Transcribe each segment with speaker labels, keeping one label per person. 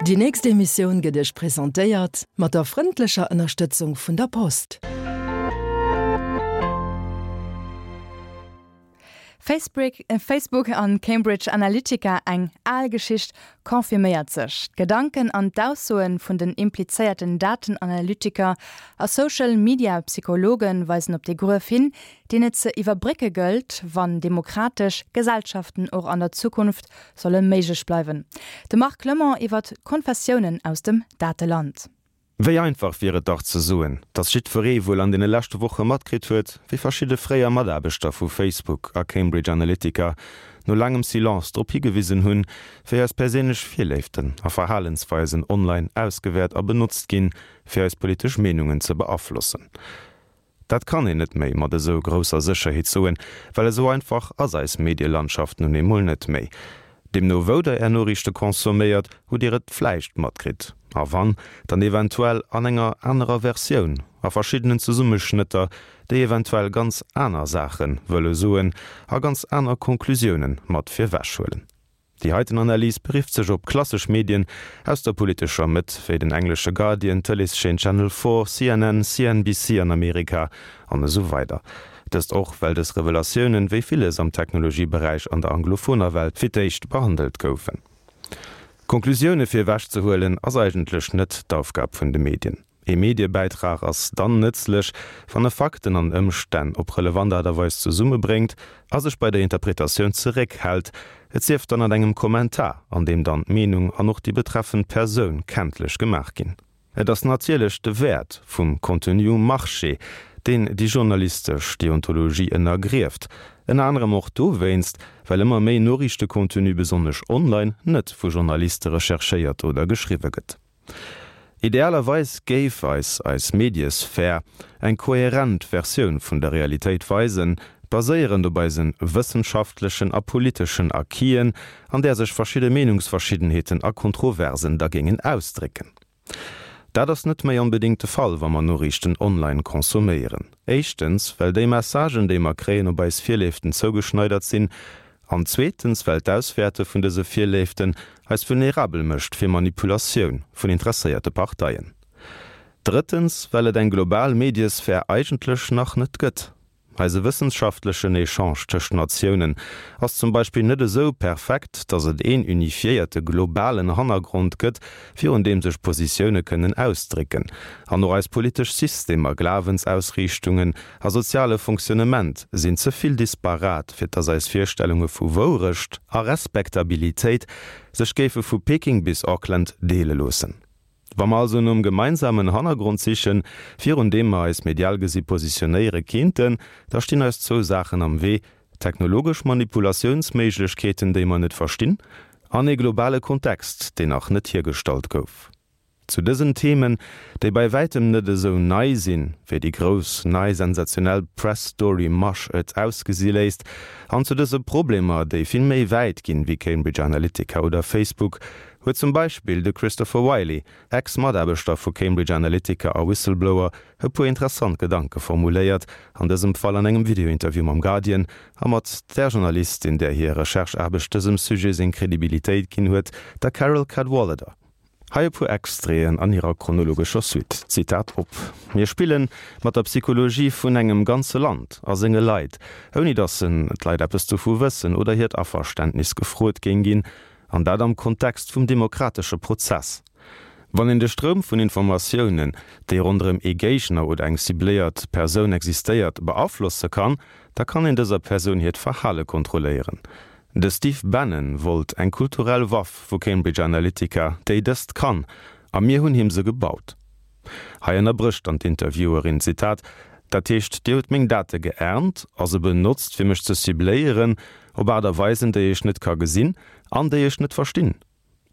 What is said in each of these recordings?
Speaker 1: Déi nächst Emissioun gëtt Iech presentéiert mat der frëndlecher Ënnerstëtzung vun der Post.
Speaker 2: Facebook an Cambridge Analytica, eng al Geschicht confirméiert sech. D'Gedanken an d'Aussoe vun den implizéierten Datenanalytiker a Social Media Psychologe weisen op dee Gruef hin, deen et ze iwwerbrécke gëllt, wann demokratesch Gesellschaften och an der Zukunft solle méiglech bleiwen. De Marc Clement iwwert d'Konfessiounen aus dem Dateland.
Speaker 3: Wéi einfach wier et dach ze soen, datt jiddweree wuel an deene leschte Woche matkritt huet, wéi verschidde fréier Mataarbechter vu Facebook a Cambridge Analytica no laangem Silence drop higewisen hunn, wéi eis perséinlech Virléiften a Verhalensweisen online ausgewäert a benotzt ginn, fir eis politesch Meenungen ze beaflossen. Dat kann een net méi mat esou grousser Sécherheet soen, well esou einfach ass eis Medielandschaft nun eemol net méi. Deemno wou der är Noriichte consomméiert, hutt dir et vläicht matkritt, a wann, dann eventuell an enger anerer Versioun, a verschiddenen Zesummeschnëtter, déi eventuell ganz aner Saache wëlle soen a ganz aner Conclusiounen mat virwech huelen. Déi heiten Analys berifft sech op klassesch Medien aus der politescher Mëtt, wéi den englesche Guardian, d'Tëleeschaîne Channel 4, CNN, CNBC an Amerika, an esou weider. Dëst och, well dës Revelatiounen, wéi villes am Technologieberäich an der anglophoner Welt, fir d'éischt behandelt goufen. Conclusioune fir ewech ze huelen, ass eigentlech net d'Aufgab vun de Medien. Ee Mediebäitrag ass dann nëtzlech, wann e Fakten an Ëmstänn op relevant Aart a Weis zesummebréngt a sech bei der Interpretatioun zeréckhält, et sief dann an engem Kommentar, an deem dann d'Meenung an och déi betreffend Persoun kenntlech gemaach ginn. Et ass natierlech de Wäert vum Contenu um Marché, deen déi journalistesch Deontologie ënnergrieft, ënner anerem och dowéinst, well ëmmer méi Noriichtecontenu, besonnesch online, net vu Journaliste recherchéiert oder geschriwwe gëtt. Idealerweis géif eis eis Mediesphär eng kohärent Versioun vun der Realitéit weisen, baséierend op eise wëssenschaftlechen a politeschen Acquisen, an där sech verschidde Meenungsverschiddenheeten a Kontroversen da géingen ausdrécken. Dat ass net méi onbedéngt de Fall, wa mer Noriichten online consomméieren. Éischtens, well déi Messagen, déi mer kréien, op eis Virléiften zougeschneidert sinn An zweetens, well d'Auswäerte vun dëse Virléiften eis vulnerabel mécht fir Manipulatioun vun interesséierte Parteien. Drëttens, well et eng global Mediesphär eigentlech nach net gëtt. Eise wëssenschaftlechen Echange tëscht Natiounen ass zum Beispill net esou perfekt, datt et een unifiéierte globalen Hannergrond gëtt, virun deem sech Positioune kënnen ausdrécken. An och eis politesch Systemer, Glawensausriichtungen a soziale Fonctionnement sinn ze vill disparat, fir dass eis Virstellunge vu Wourecht a Respektabilitéit sech géife vu Peking bis Auckland deele loossen. Wa mer also nom gemeinsamen Hannergrond sichen, virun deem mer eis medial gesi positionéiere kéinten, da stinn eis zwou Saachen am Wee, technologesch Manipulatiounsméiglechkeeten, déi mer net verstinn, an ee globale Kontext, deen nach net hiergestallt gouf. Zu dësen Themen, déi bei wäitem net esou nei sinn, wéi déi grouss, nei sensationell Press-Story-Masch et ausgesi léisst, an zu dëse Problemer, déi vill méi wäit ginn wéi Cambridge Analytica oder Facebook, huet zum Beispill de Christopher Wylie, Ex-Mataarbechter vu Cambridge Analytica a Whistleblower, e puer interessant Gedanke formuléiert, an dësem Fall an engem Videointerview mam Guardian a mat där Journalistin, där hir Recherche-Aarbecht dësem Sujet seng Kredibilitéit ginn huet, der Carole Cadwalladr. Hei e puer Extraiten an hirer chronologescher Suite, Zitat op, Mir spille mat der Psychologie vun engem ganze Land a senge Leit, ouni datt en d'Leit eppes dovu wëssen oder hiert Averständnis gefrot géing ginn, an dat am Kontext vum demokratesche Prozess. Wann een de Stroum vun Informatiounen, déi ronderëm ee Géigner oder eng cibléiert Persoun existéiert, beaflosse kann, da kann een dëser Persoun hiert Verhale kontrolléieren. De Steve Bannon wollt eng kulturell Waff vu Cambridge Analytica, déi dëst kann, a mir hunn him se gebaut. Hei ënnerbrécht dann d'Interviewerin, Zitat, Dat heescht, Dir hutt meng Date geernt a se benotzt, fir mech ze cibléieren op Aart a Weisen, déi ech net ka gesinn an déi ech net verstinn?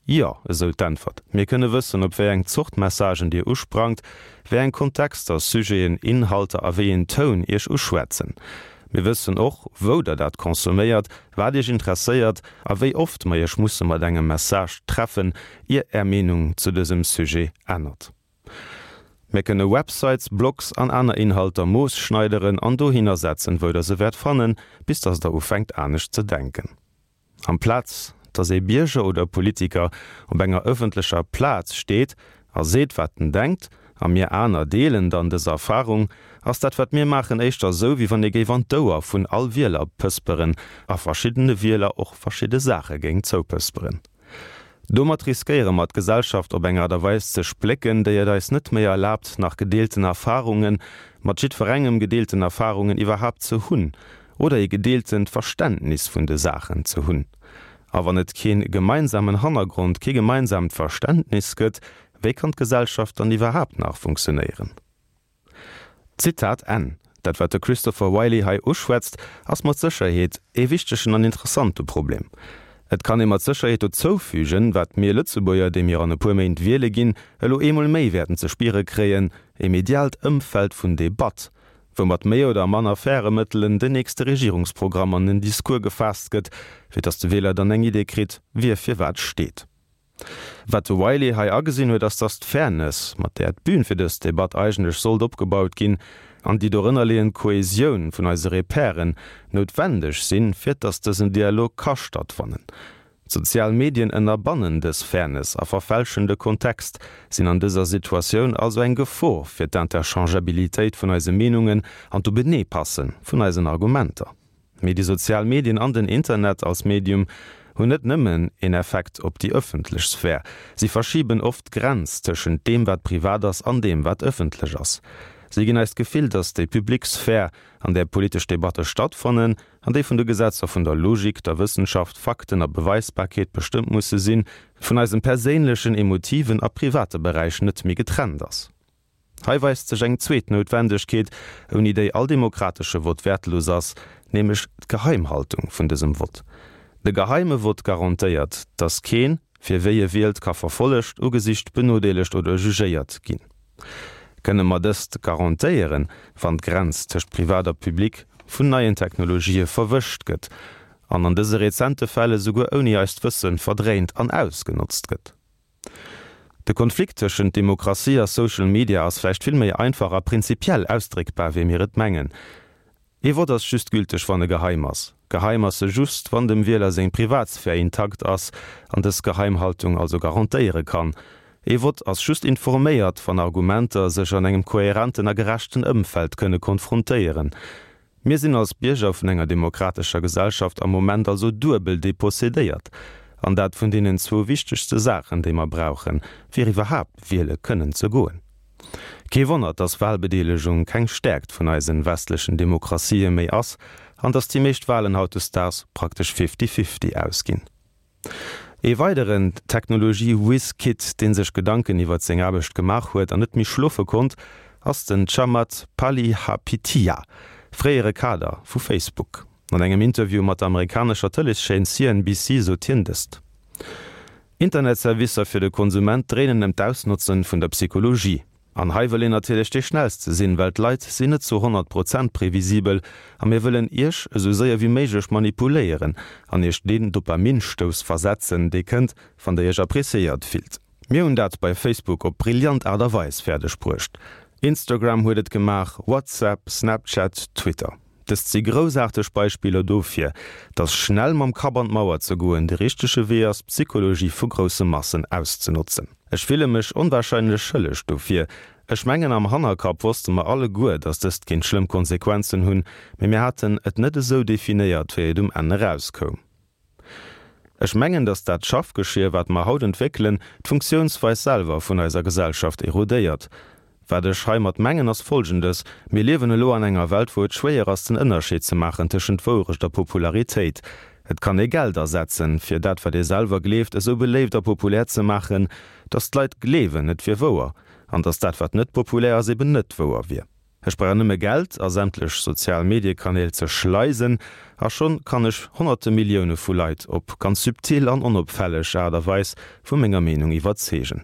Speaker 3: Jo, esou d'Äntwert. Mir kënne wëssen, op wéi eng Zort Messagen Dir usprangt, wéi eng Kontexter, Sujeten, Inhalter a wéi een Toun Iech uschwätzen. Mir wëssen och, wou Der dat consomméiert, wat Iech interesséiert a wéi oft mer Iech musse mat engem Message treffen, ier Är Meenung zu dësem Sujet ännert. Mir kënne Websites, Blogs an aner Inhalter moosschneideren an dohinner setzen, wou Der se wäert fannen, bis dass Der ufänkt anescht ze denken. Amplaz. dass ee Bierger oder Politiker op enger ëffentlecher Plaz steet a seet wat en denkt, a mir aner deelen dann dës Erfarung, ass dat wat mir maachen éischter esou wéi wann ee géif an d'Ouer vun all Wieler pësperen a verschiddene Wieler och verschidde Saache géing zoupësperen. Domat riskéiere mer d'Gesellschaft op eng Aart a Weis ze splécken, déi et eis net méi erlaabt nach gedeelten Erfarungen, mat jiddwerengem gedeelten Erfarungen iwwerhaapt ze hunn oder ee gedeeltent Verständnis vun de Saachen ze hunn. A wann et kee gemeinsamen Hannergrond, kee gemeinsaamt Verständnis gëtt, wéi kann d'Gesellschaft dann iwwerhaapt nach funktionéieren? Zitat Enn. Dat wat de Christopher Wylie hei uschwätzt, ass mat Sécherheet ee wichtegen an interessante Problem. Et kann ee mat Sécherheet dozoufügen, wat mir Lëtzebuerger, déi mir an e puer Méint wiele ginn, elo eemol méi wäerten ze spiere kréien, e mediaalt Ëmfeld vun Debatt, wou mat méi oder manner faire Mëttelen den nächste Regierungsprogramm an den Discours gefaasst gëtt, fir datt de Wieler dann eng Idee kritt, wie fir wat steet. Wat de Wylie hei agesinn huet, ass, datt d'Fairness, mat där d'Bün fir dës Debatt eigentlech sollt opgebaut ginn, an déi dorënnerleeënd Kohesioun vun eise Repèren noutwendeg sinn, fir datt dësen Dialog ka stattfannen. D'sozial Medien ënnerbannen dës Fairness a verfälschen de Kontext, sinn an dëser Situatioun also eng Gefor fir d'Interchangeabilitéit vun eise Meenungen an d'Openeepasse vun eisen Argumenter. Mee déi sozial Medien an den Internet als Medium hunn net nëmmen een Effekt op déi ëffentlech Sphär, si verschiben oft d'Grenz tëschent deem wat privat ass an deem wat ëffentlech ass. Si ginn eis d'Gefill, datt déi public Sphär, an där politesch Debatte stattfannen, an déi vun de Gesetzer vun der Logik, der Wëssenschaft, Fakten a Beweisbarkeet bestëmmt musse sinn, vun eisem perséinlechen, emotiven a private Beräich net méi getrennt ass. Hei weist sech eng zweet Noutwendegkeet, ouni déi all demokratesche Vott wäertlos ass, nämlech d'Geheimhaltung vun dësem Vott. De geheime Vott garantéiert, dass keen, fir wéi e wielt, ka verfollegt, ugesicht, benodeelegt oder jugéiert ginn. Kënne mer dëst garantéieren, wann d'Grenz tëscht Privat a Public vun neien Technologië verwëscht gëtt an an dëse rezente Fäll esouguer ouni eist Wësse verdréint an ausgenotzt gëtt? De Konflikt tëschent Demokratie a Social Media ass vläicht vill méi einfach a prinzipiell ausdréckbar, wéi mir et mengen. Ee Vott ass just gülteg, wann e geheim ass. Geheim ass e just, wann dem Wieler seng Privatsphär intakt ass an dës Geheimhaltung also garantéiere kann. Ee Vott ass just informéiert, wann Argumenter sech an engem kohärenten a gerechten Ëmfeld kënne konfrontéieren. Mir sinn als Bierger vun enger demokratescher Gesellschaft am Moment also duebel depossedéiert, an dat vun deenen zwou wichtegste Saachen, déi mer brauchen, fir iwwerhaapt wiele kënnen ze goen. Kee Wonner, dass Wahlbedeelegung keng Stäerkt vun eisen westlechen Demokratië méi ass an dass déi meescht Wahlen hautdesdaags praktesch fifty-fifty ausginn. Ee weideren Technologie-Whiz-Kid, dee sech Gedanken iwwert seng Aarbecht gemaach huet an net méi schlofe konnt, ass den Chamath Palihapitiya, fréiere Kader vu Facebook. An engem Interview mat der amerikanescher Tëleeschaîne CNBC sot hien dëst. Internetservicer fir de Konsument dréinen ëm d'Ausnotzen vun der Psychologie. An hei wëll een natierlech dee schnellste sinn, well d'Leit sinn net zu 100 Prozent previsibel a mir wëllen iech esou séier wéi méiglech manipuléieren an iech deen Dopaminsstouss versetzen, dee kënnt, wann der iech appreciéiert fillt. Mir hunn dat bei Facebook op brillant Aart a Weis fäerdeg bruecht. Instagram huet et gemaach, WhatsApp, Snapchat, Twitter. Dëst si groussaarteg Beispiller dofir, dass schnell mam Kapp an d'Mauer ze goen de richtege Wee ass, d'Psychologie vu grousse Massen auszenotzen. Ech fille mech onwahrscheinlech schëlleg dofir. Ech mengen, am Hannerkapp wosste mer alleguer, dass dëst kéint schlëmm Konsequenzen hunn, mee mir haten et net esou definéiert, wéi et um Enn erauskoum. Ech mengen, dass dat Schaffgeschier, wat mer haut entwéckelen, d'Funktiounsweis selwer vun eiser Gesellschaft erodéiert. Wat ech heimat mengen, ass Folgendes, Mir liewen elo an enger Welt, wou et schwéier ass, den Ënnerscheed ze maachen tëschent Wourecht a Popularitéit. Et kann ee Geld asetzen, fir dat, wat ee selwer gleeft, esou beléift a populär ze maachen, dass d'Leit gleewen, et wier wouer, an dass dat, wat net populär ass, eben net wouer wier. Ech brauch nëmme Geld a sämtlech sozial Mediekanäl ze schleisen a schonn kann ech honnerte Millioune vu Leit op ganz subtil an onopfälleg Aart a Weis vu menger Meenung iwwerzeegen.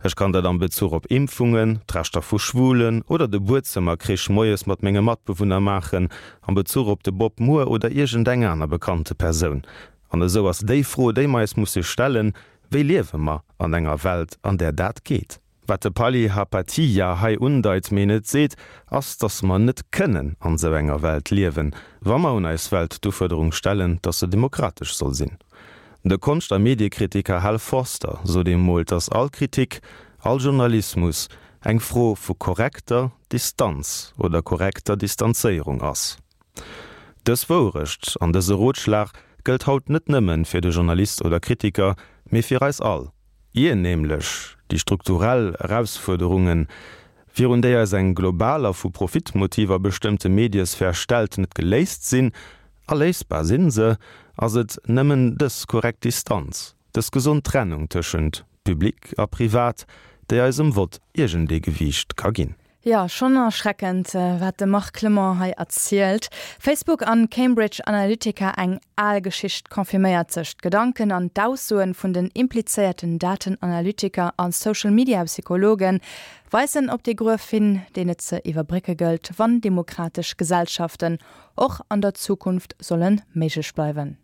Speaker 3: Ech kann dat am Bezuch op Impfungen, d'Rechter vu Schwulen oder de Buedzëmmerkrich moies mat menge Matbewunner maachen, am Bezuch op de Bob Moore oder iergendeng aner bekannte Persoun. An esou ass déi Fro, déi mer eis musse stellen, Wéi liewe mer an enger Welt, an där dat geet? Wat de Palihapatiya hei undeit, mee net seet, ass, dass mer net kënnen an esou enger Welt liewen, wa mer un eis Welt d'Ufuerderung stellen, dass se demokratesch soll sinn. De Konscht a Mediekritiker Hal Foster sot emol, datt all Kritik, all Journalismus eng Fro vu korrekter Distanz oder korrekter Distanzéierung ass. Dës Wourecht an dëse Rotschlag gëllt haut net nëmmen fir de Journalist oder Kritiker, mee fir eis all. Ier nämlech déi strukturell Erausfuerderungen, virun déi eis eng global a vu Profitmotiver bestëmmte Mediesphär stellt, net geléist sinn, a léisbar sinn se, ass et nëmmen dës korrekt Distanz, dës gesond Trennung tëschent Public a Privat, déi eisem Vott iergendee Gewiicht ka ginn.
Speaker 2: Jo, schonn erschreckend, wat de Marc Clement hei erzielt. Facebook an Cambridge Analytica, eng al Geschicht confirméiert sech. D'Gedanken an d'Aussoen vun den implizéierten Datenanalytiker a Social-Media-Psychologen weisen op dee Gruef hin, deen et ze iwwerbrécke gëllt, wann demokratesch Gesellschaften och an der Zukunft solle méiglech bleiwen.